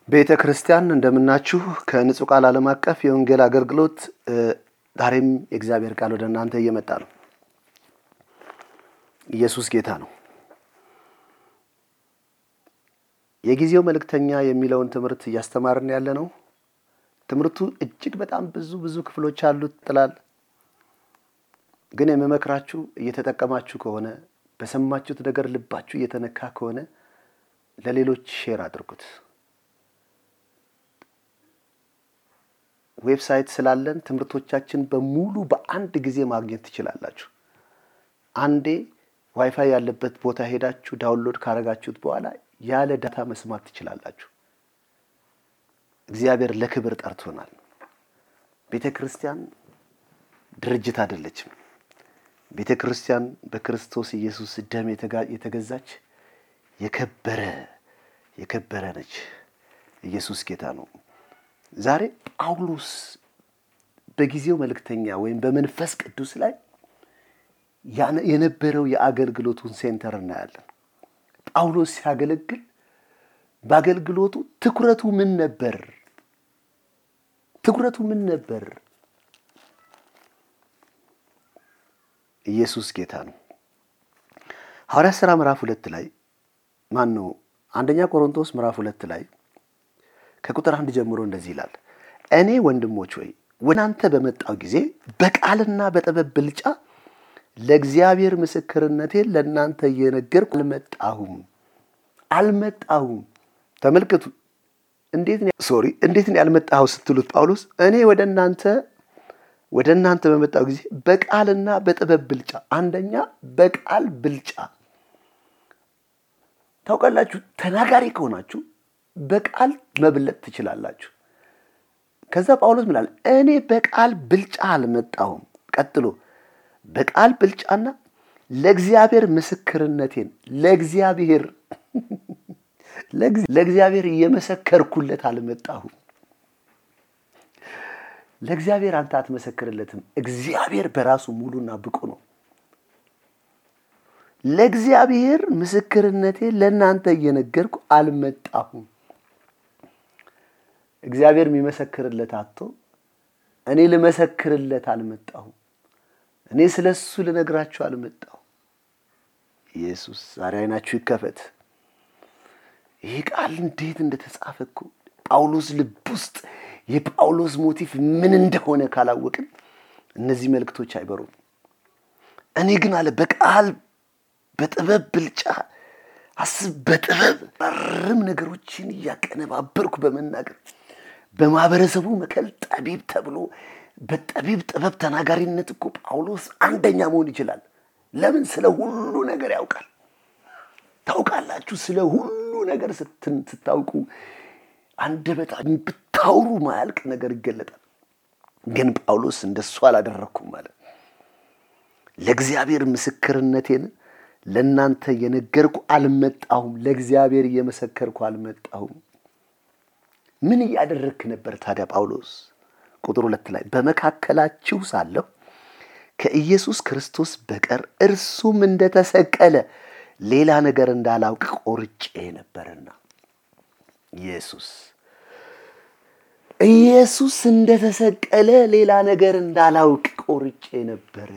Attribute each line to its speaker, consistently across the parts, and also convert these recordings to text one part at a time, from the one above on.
Speaker 1: ቤተ ክርስቲያን እንደምናችሁ ከንጹህ ቃል ዓለም አቀፍ የወንጌል አገልግሎት ዛሬም የእግዚአብሔር ቃል ወደ እናንተ እየመጣ ነው። ኢየሱስ ጌታ ነው። የጊዜው መልእክተኛ የሚለውን ትምህርት እያስተማርን ያለ ነው። ትምህርቱ እጅግ በጣም ብዙ ክፍሎች አሉት ጥላል። ግን የምመክራችሁ እየተጠቀማችሁ ከሆነ በሰማችሁት ነገር ልባችሁ እየተነካ ከሆነ ለሌሎች ሼር አድርጉት። ዌብሳይት ስላለን ትምህርቶቻችን በሙሉ በአንድ ጊዜ ማግኘት ትችላላችሁ። አንዴ ዋይፋይ ያለበት ቦታ ሄዳችሁ ዳውንሎድ ካረጋችሁት በኋላ ያለ ዳታ መስማት ትችላላችሁ። እግዚአብሔር ለክብር ጠርቶናል። ቤተክርስቲያን ድርጅት አይደለችም። ቤተክርስቲያን በክርስቶስ ኢየሱስ ደም የተገዛች የከበረ ነች። ኢየሱስ ጌታ ነው። ዛሬ ጳውሎስ በጊዜው መልእክተኛ ወይም በመንፈስ ቅዱስ ላይ የነበረው የአገልግሎቱን ሴንተር እናያለን። ጳውሎስ ሲያገለግል በአገልግሎቱ ትኩረቱ ምን ነበር? ኢየሱስ ጌታ ነው። ሐዋርያት ሥራ ምዕራፍ 2 ላይ አንደኛ ቆሮንቶስ ምዕራፍ 2 ላይ ከቁጥር 1 ጀምሮ እንደዚህ ይላል። እኔ ወንድሞች ሆይ ወደ እናንተ በመጣው ጊዜ በቃልና በጥበብ ብልጫ ለእግዚአብሔር ምስክርነቴን ለእናንተ እየነገርኩ አልመጣሁም። ተመልከቱ። እንዴት ነው ያልመጣው ስትሉት ጳውሎስ እኔ ወደ እናንተ በመጣው ጊዜ በቃልና በጥበብ ብልጫ። አንደኛ በቃል ብልጫ። ታውቃላችሁ፣ ተናጋሪ ከሆናችሁ በቃል መብለጥ ትችላላችሁ። ከዛ ጳውሎስ ምን አለ? እኔ በቃል ብልጫ አልመጣሁም። ቀጥሎ በቃል ብልጫና ለእግዚአብሔር ምስክርነቴን ለእግዚአብሔር እየመሰከርኩለት አልመጣሁም። ለእግዚአብሔር አንተ አትመሰክርለትም። እግዚአብሔር በራሱ ሙሉና ብቁ ነው። ለእግዚአብሔር ምስክርነቴን ለእናንተ እየነገርኩ አልመጣሁም። እግዚአብሔር የሚመሰክርለት አጥቶ እኔ ልመሰክርለት አልመጣሁም። እኔ ስለሱ ልነግራችሁ አልመጣሁም። ኢየሱስ ዛሬ አይናችሁ ይከፈት። ይህ ቃል እንዴት እንደተጻፈ እኮ ጳውሎስ ልብ ውስጥ የጳውሎስ ሞቲቭ ምን እንደሆነ ካላወቅን እነዚህ መልእክቶች አይበሩም። እኔ ግን አለ በቃል በጥበብ ብልጫ በጥበብ ነገሮችን እያቀነባበርኩ በመናገር በማህበረሰቡ መከል ጠቢብ ተብሎ በጠቢብ ጥበብ ተናጋሪነት እኮ ጳውሎስ አንደኛ መሆን ይችላል። ለምን? ስለ ሁሉ ነገር ያውቃል። ታውቃላችሁ፣ ስለ ሁሉ ነገር ስታውቁ አንደበታችሁ ብታውሩ ማያልቅ ነገር ይገለጣል። ግን ጳውሎስ እንደሱ አላደረኩም ማለት ለእግዚአብሔር ምስክርነቴን ለእናንተ የነገርኩ አልመጣሁም። ለእግዚአብሔር እየመሰከርኩ አልመጣሁም። ምን እያደረክ ነበር ታዲያ ጳውሎስ? ቁጥር 2 ላይ በመካከላችሁ ሳለሁ ከኢየሱስ ክርስቶስ በቀር እርሱም እንደተሰቀለ ሌላ ነገር እንዳላውቅ ቆርጬ ነበርና። ኢየሱስ እንደተሰቀለ ሌላ ነገር እንዳላውቅ ቆርጬ ነበር።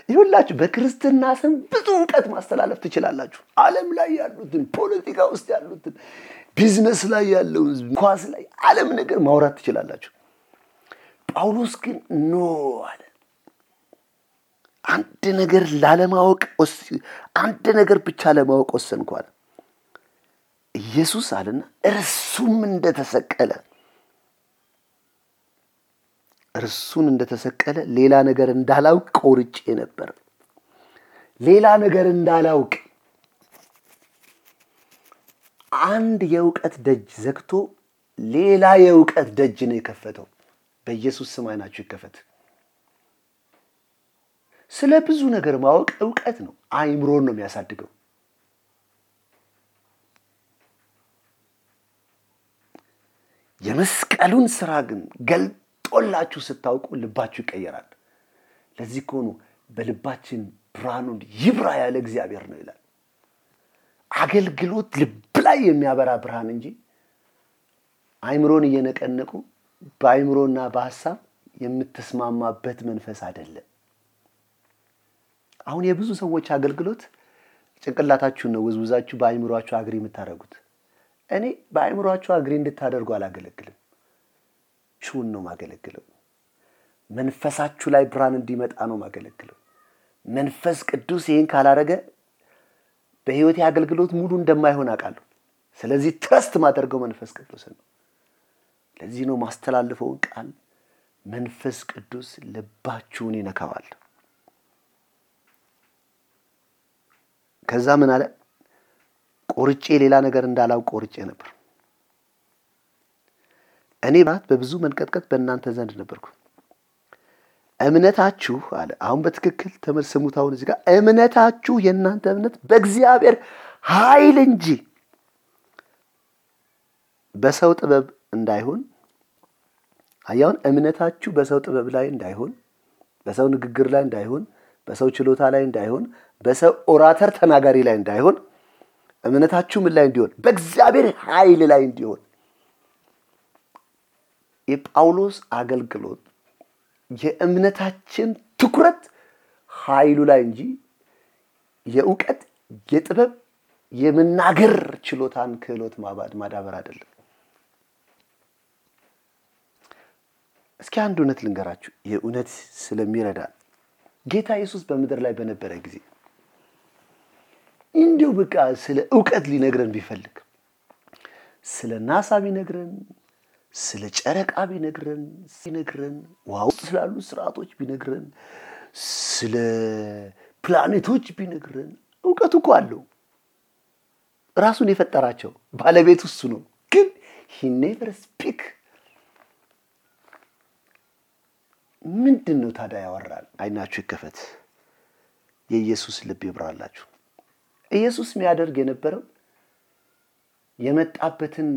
Speaker 1: ይሁላችሁ በክርስትና ስም ብዙ ዕውቀት ማስተላለፍ ትችላላችሁ። ዓለም ላይ ያሉትን፣ ፖለቲካ ውስጥ ያሉትን፣ ቢዝነስ ላይ ያለውን፣ ኳስ ላይ ዓለም ነገር ማውራት ትችላላችሁ። ጳውሎስ ግን አለ። አንድ ነገር ብቻ ለማወቅ ወሰንኩ አለ። ኢየሱስ አለና እርሱን እንደተሰቀለ ሌላ ነገር እንዳላውቅ ቆርጬ ነበር። ሌላ ነገር እንዳላውቅ አንድ የዕውቀት ደጅ ዘግቶ ሌላ የዕውቀት ደጅ ነው የከፈተው። በኢየሱስ ስም አይናችሁ ይከፈት። ስለ ብዙ ነገር ማወቅ ዕውቀት ነው። አይምሮን ነው የሚያሳድገው። የመስቀሉን ስራ ግን ገልጦላችሁ ስታውቁ ልባችሁ ይቀየራል። ለዚህ እኮ ነው በልባችን ብርሃኑን ይብራ ያለ እግዚአብሔር ነው ይላል። አገልግሎት ልብ ላይ የሚያበራ ብርሃን እንጂ አይምሮን እየነቀነቁ በአይምሮና በሐሳብ የምትስማማበት መንፈስ አይደለም። አሁን የብዙ ሰዎች አገልግሎት ጭንቅላታችሁን ነው ወዝውዛችሁ በአይምሮአችሁ አግሪ የምታደርጉት። እኔ በአይምሮአችሁ አግሪ እንድታደርጉ አላገለግልም። ሹን ነው ማገለግለው። መንፈሳችሁ ላይ ብርሃን እንዲመጣ ነው ማገለግለው። መንፈስ ቅዱስ ይሄን ካላረገ በህይወት አገልግሎት ሙሉ እንደማይሆን አውቃለሁ። ስለዚህ ትረስት ማደርገው መንፈስ ቅዱስ ነው። ለዚህ ነው ማስተላለፈው ቃል መንፈስ ቅዱስ ልባችሁን ይነካዋል። ከዛ ምን አለ? ቆርጬ ሌላ ነገር እንዳላውቅ ቆርጬ ነበር። እኔ በብዙ መንቀጥቀጥ በእናንተ ዘንድ ነበርኩ። እምነታችሁ አለ። አሁን በትክክል ተመልሰሙት። አሁን እዚህ ጋር እምነታችሁ የእናንተ እምነት በእግዚአብሔር ኃይል እንጂ በሰው ጥበብ እንዳይሆን። አያውን እምነታችሁ በሰው ጥበብ ላይ እንዳይሆን፣ በሰው ንግግር ላይ እንዳይሆን፣ በሰው ችሎታ ላይ እንዳይሆን፣ በሰው ኦራተር ተናጋሪ ላይ እንዳይሆን፣ እምነታችሁ ምን ላይ እንዲሆን? በእግዚአብሔር ኃይል ላይ እንዲሆን። የጳውሎስ አገልግሎት የእምነታችን ትኩረት ኃይሉ ላይ እንጂ የእውቀት የጥበብ የመናገር ችሎታን ክህሎት ማዳበር አይደለም። እስኪ አንድ እውነት ልንገራችሁ፣ የእውነት ስለሚረዳ ጌታ ኢየሱስ በምድር ላይ በነበረ ጊዜ እንዲሁ በቃ ስለ ዕውቀት ሊነግረን ቢፈልግ ስለ ናሳ ቢነግረን፣ ስለ ጨረቃ ቢነግረን፣ ዋው ስላሉ ስርዓቶች ቢነግረን፣ ስለ ፕላኔቶች ቢነግረን፣ ዕውቀቱ እኮ አለው። ራሱን የፈጠራቸው ባለቤቱ እሱ ነው። ግን he never speak። ምንድነው ታዲያ ያወራል? አይናችሁ ይከፈት፣ የኢየሱስ ልብ ይብራላችሁ። ኢየሱስ የሚያደርግ የነበረው የመጣበትን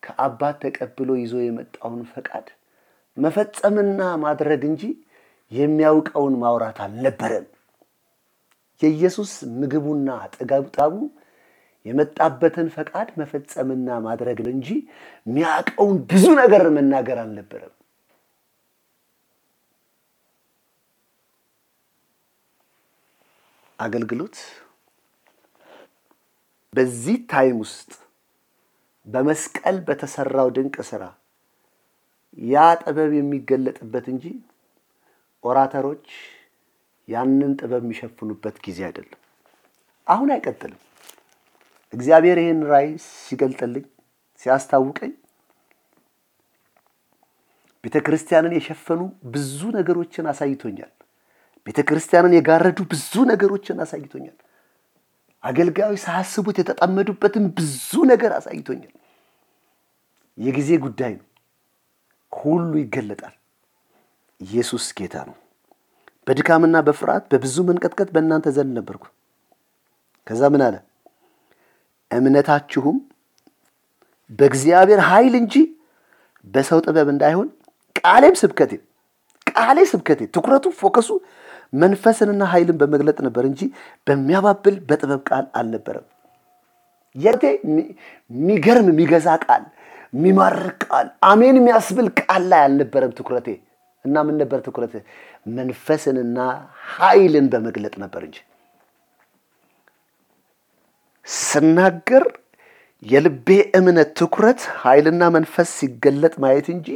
Speaker 1: ከአባት ተቀብሎ ይዞ የመጣውን ፈቃድ መፈጸምና ማድረግ እንጂ የሚያውቀውን ማውራት አልነበረም። የኢየሱስ ምግቡና ጥጋቡ የመጣበትን ፈቃድ መፈጸምና ማድረግ እንጂ የሚያውቀውን ብዙ ነገር መናገር አልነበረም። አገልግሎት በዚህ ታይም ውስጥ በመስቀል በተሰራው ድንቅ ሥራ ያ ጥበብ የሚገለጥበት እንጂ ኦራተሮች ያንን ጥበብ የሚሸፍኑበት ጊዜ አይደለም። አሁን አይቀጥልም። እግዚአብሔር ይሄን ራእይ ሲገልጥልኝ ሲያስታውቀኝ ቤተክርስቲያንን የሸፈኑ ብዙ ነገሮችን አሳይቶኛል። ቤተክርስቲያንን የጋረዱ ብዙ ነገሮችን አሳይቶኛል። አገልጋዮች ሳያስቡት የተጠመዱበትን ብዙ ነገር አሳይቶኛል። የጊዜ ጉዳይ ነው። ሁሉ ይገለጣል። ኢየሱስ ጌታ ነው። በድካምና በፍርሃት በብዙ መንቀጥቀጥ በእናንተ ዘንድ ነበርኩ። ከዛ ምን አለ? እምነታችሁም በእግዚአብሔር ኃይል እንጂ በሰው ጥበብ እንዳይሆን ቃሌ ስብከቴ ትኩረቱ ፎከሱ መንፈስንና ኃይልን በመግለጥ ነበር እንጂ በሚያባብል በጥበብ ቃል አልነበረም። የቴ የሚገርም የሚገዛ ቃል፣ የሚማርክ ቃል፣ አሜን የሚያስብል ቃል ላይ አልነበረም ትኩረቴ። እና ምን ነበር ትኩረቴ? መንፈስንና ኃይልን በመግለጥ ነበር እንጂ ስናገር የልቤ እምነት ትኩረት ኃይልና መንፈስ ሲገለጥ ማየት እንጂ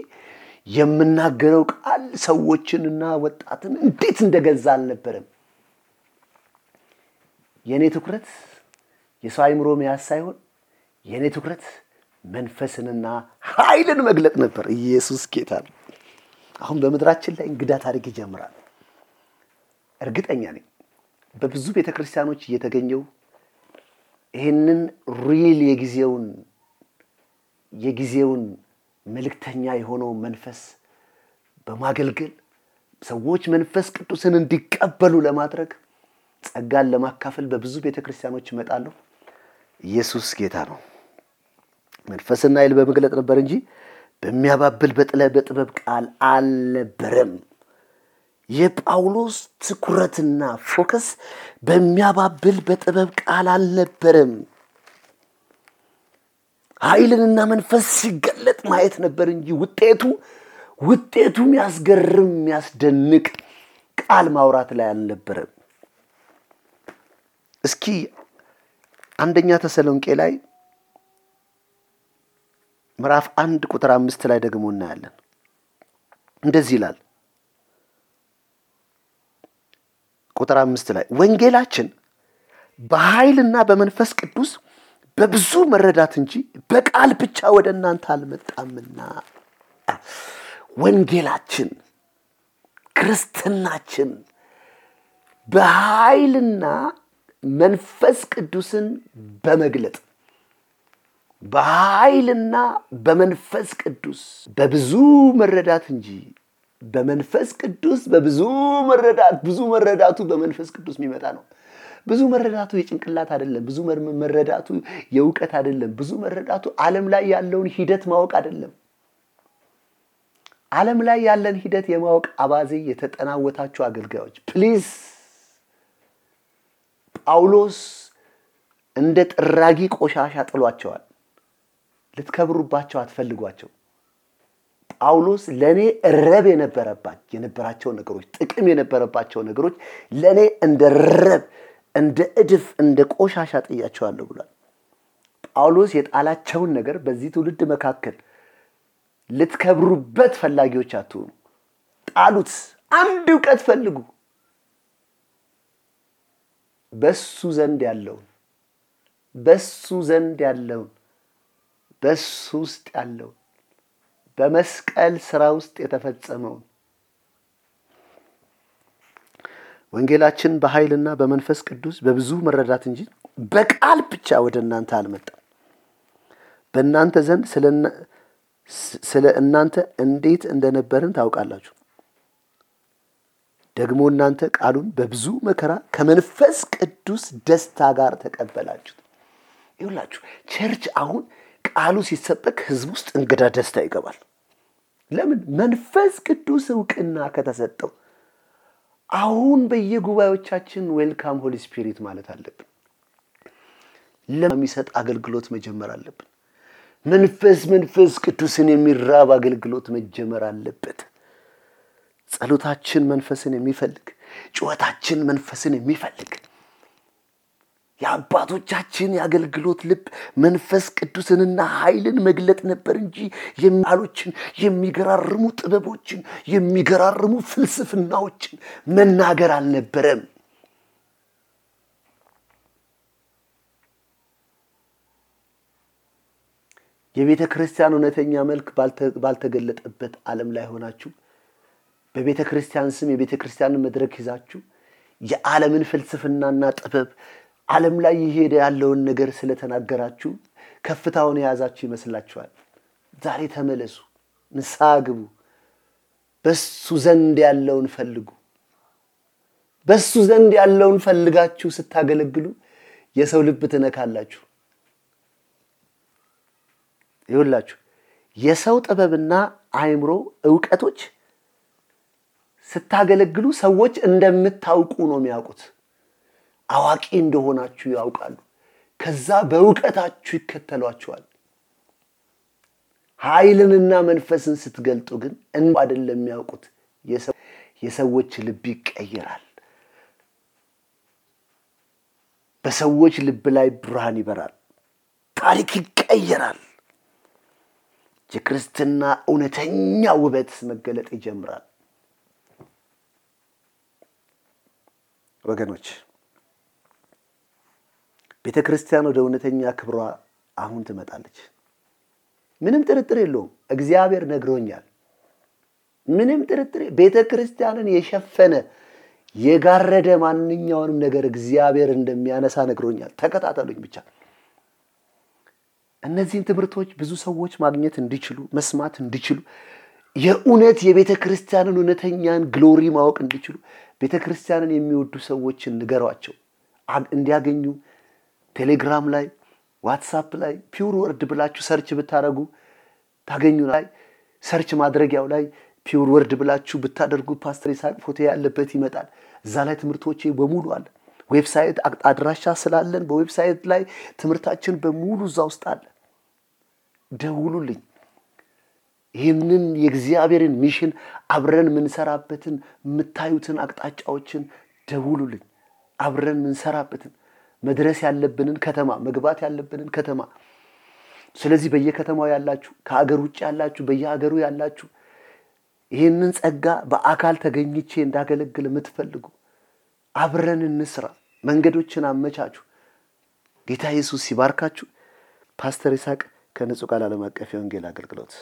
Speaker 1: የምናገረው ቃል ሰዎችንና ወጣትን እንዴት እንደገዛ አልነበረም። የኔ ትኩረት የሰው አይምሮ መያዝ ሳይሆን የኔ ትኩረት መንፈስንና ኃይልን መግለጥ ነበር። ኢየሱስ ጌታ ነው። አሁን በመድራችን ላይ እንግዳ ታሪክ ይጀምራል። እርግጠኛ ነኝ በብዙ ቤተክርስቲያኖች እየተገኘው ይሄንን ሪል የጊዜውን መልእክተኛ የሆነው መንፈስ በማገልገል ሰዎች መንፈስ ቅዱስን እንዲቀበሉ ለማድረግ ጸጋን ለማካፈል በብዙ ቤተክርስቲያኖች ይመጣሉ። ኢየሱስ ጌታ ነው። መንፈስና ኃይል በመግለጥ ነበር እንጂ በሚያባብል በጥበብ ቃል አልነበረም። የጳውሎስ ትኩረትና ፎከስ በሚያባብል በጥበብ ቃል አልነበረም። ኃይልና መንፈስ ሲገለጥ ማየት ነበር እንጂ ውጤቱ የሚያስገርም የሚያስደንቅ ቃል ማውራት ላይ አልነበረም። እስኪ አንደኛ ተሰሎንቄ ላይ ምዕራፍ 1 ቁጥር 5 ላይ ደግሞ እናያለን። እንደዚህ ይላል። ቁጥር 5 ላይ ወንጌላችን በኃይልና በመንፈስ ቅዱስ በብዙ መረዳት እንጂ በቃል ብቻ ወደ እናንተ አልመጣምና። ወንጌላችን ክርስትናችን በኃይልና መንፈስ ቅዱስን በመግለጥ በኃይልና በመንፈስ ቅዱስ በብዙ መረዳት እንጂ በመንፈስ ቅዱስ በብዙ መረዳት ብዙ መረዳቱ በመንፈስ ቅዱስ የሚመጣ ነው። ብዙ መረዳቱ የጭንቅላት አይደለም። ብዙ መረዳቱ የእውቀት አይደለም። ብዙ መረዳቱ ዓለም ላይ ያለውን ሂደት ማወቅ አይደለም። ዓለም ላይ ያለን ሂደት የማወቅ አባዜ የተጠናወታችሁ አገልጋዮች ፕሊዝ፣ ጳውሎስ እንደ ጥራጊ ቆሻሻ ጥሏቸዋል። ልትከብሩባቸው አትፈልጓቸው። ጳውሎስ ለኔ ረብ የነበራቸው ነገሮች ጥቅም የነበረባቸው ነገሮች ለኔ እንደ ረብ እንደ እድፍ እንደ ቆሻሻ ጥያቸዋለሁ ብሏል። ጳውሎስ የጣላቸውን ነገር በዚህ ትውልድ መካከል ልትከብሩበት ፈላጊዎች አትሁኑ። ጣሉት። አንድ ዕውቀት ፈልጉ። በሱ ዘንድ ያለውን በሱ ውስጥ ያለውን በመስቀል ስራ ውስጥ የተፈጸመውን ወንጌላችን በኃይልና በመንፈስ ቅዱስ በብዙ መረዳት እንጂ በቃል ብቻ ወደ እናንተ አልመጣም። በእናንተ ዘንድ ስለ እናንተ እንዴት እንደነበርን ታውቃላችሁ። ደግሞ እናንተ ቃሉን በብዙ መከራ ከመንፈስ ቅዱስ ደስታ ጋር ተቀበላችሁት። ይኸውላችሁ ቸርች አሁን ቃሉ ሲሰበክ ህዝብ ውስጥ እንግዳ ደስታ ይገባል። ለምን? መንፈስ ቅዱስ ዕውቅና ከተሰጠው። አሁን በየጉባኤዎቻችን ዌልካም ሆሊ ስፒሪት ማለት አለብን። ለሚሰጥ አገልግሎት መጀመር አለብን። መንፈስ ቅዱስን የሚራብ አገልግሎት መጀመር አለበት። ጸሎታችን መንፈስን የሚፈልግ፣ ጩኸታችን መንፈስን የሚፈልግ፣ የአባቶቻችን የአገልግሎት ልብ መንፈስ ቅዱስንና ኃይልን መግለጥ ነበር እንጂ የሚያሎችን የሚገራርሙ ጥበቦችን የሚገራርሙ ፍልስፍናዎችን መናገር አልነበረም። የቤተ ክርስቲያን እውነተኛ መልክ ባልተገለጠበት ዓለም ላይ ሆናችሁ በቤተ ክርስቲያን ስም የቤተ ክርስቲያንን መድረክ ይዛችሁ የዓለምን ፍልስፍናና ጥበብ ዓለም ላይ ይሄድ ያለውን ነገር ስለተናገራችሁ ከፍታውን የያዛችሁ ይመስላችኋል። ዛሬ ተመለሱ፣ ንስሐ ግቡ፣ በሱ ዘንድ ያለውን ፈልጉ። በሱ ዘንድ ያለውን ፈልጋችሁ ስታገለግሉ የሰው ልብ ትነካላችሁ። ይኸውላችሁ የሰው ጥበብና አእምሮ ዕውቀቶች ስታገለግሉ ሰዎች እንደምታውቁ ነው የሚያውቁት። አዋቂ እንደሆናችሁ ያውቃሉ። ከዛ በዕውቀታችሁ ይከተሏችኋል። ኃይልንና መንፈስን ስትገልጡ ግን አይደለም የሚያውቁት። የሰዎች ልብ ይቀየራል። በሰዎች ልብ ላይ ብርሃን ይበራል። ታሪክ ይቀየራል። የክርስትና እውነተኛ ውበት መገለጥ ይጀምራል። ወገኖች ቤተ ክርስቲያን ወደ እውነተኛ ክብሯ አሁን ትመጣለች። ምንም ጥርጥር የለውም። እግዚአብሔር ነግሮኛል። ምንም ጥርጥር ቤተ ክርስቲያንን የሸፈነ የጋረደ ማንኛውንም ነገር እግዚአብሔር እንደሚያነሳ ነግሮኛል። ተከታተሉኝ ብቻ። እነዚህን ትምህርቶች ብዙ ሰዎች ማግኘት እንዲችሉ መስማት እንዲችሉ የእውነት የቤተ ክርስቲያንን እውነተኛን ግሎሪ ማወቅ እንዲችሉ ቤተ ክርስቲያንን የሚወዱ ሰዎችን ንገሯቸው እንዲያገኙ። ቴሌግራም ላይ ዋትስአፕ ላይ ፒውር ወርድ ብላችሁ ሰርች ብታደርጉ ታገኙ። ላይ ሰርች ማድረጊያው ላይ ፒውር ወርድ ብላችሁ ብታደርጉ ፓስተር ይስሐቅ ፎቶ ያለበት ይመጣል። እዛ ላይ ትምህርቶቼ በሙሉ አለ። ዌብሳይት አድራሻ ስላለን በዌብሳይት ላይ ትምህርታችን በሙሉ እዛ ውስጥ አለ። ደውሉልኝ። ይህንን የእግዚአብሔርን ሚሽን አብረን ምንሰራበትን የምታዩትን አቅጣጫዎችን ደውሉልኝ። አብረን ምንሰራበትን መድረስ ያለብንን ከተማ መግባት ያለብንን ከተማ። ስለዚህ በየከተማው ያላችሁ፣ ከአገር ውጭ ያላችሁ፣ በየሀገሩ ያላችሁ ይህንን ጸጋ በአካል ተገኝቼ እንዳገለግል የምትፈልጉ አብረን እንስራ። መንገዶችን አመቻቹ። ጌታ ኢየሱስ ሲባርካችሁ። ፓስተር ይስሐቅ ከንጹህ ቃል ዓለም አቀፍ የወንጌል አገልግሎት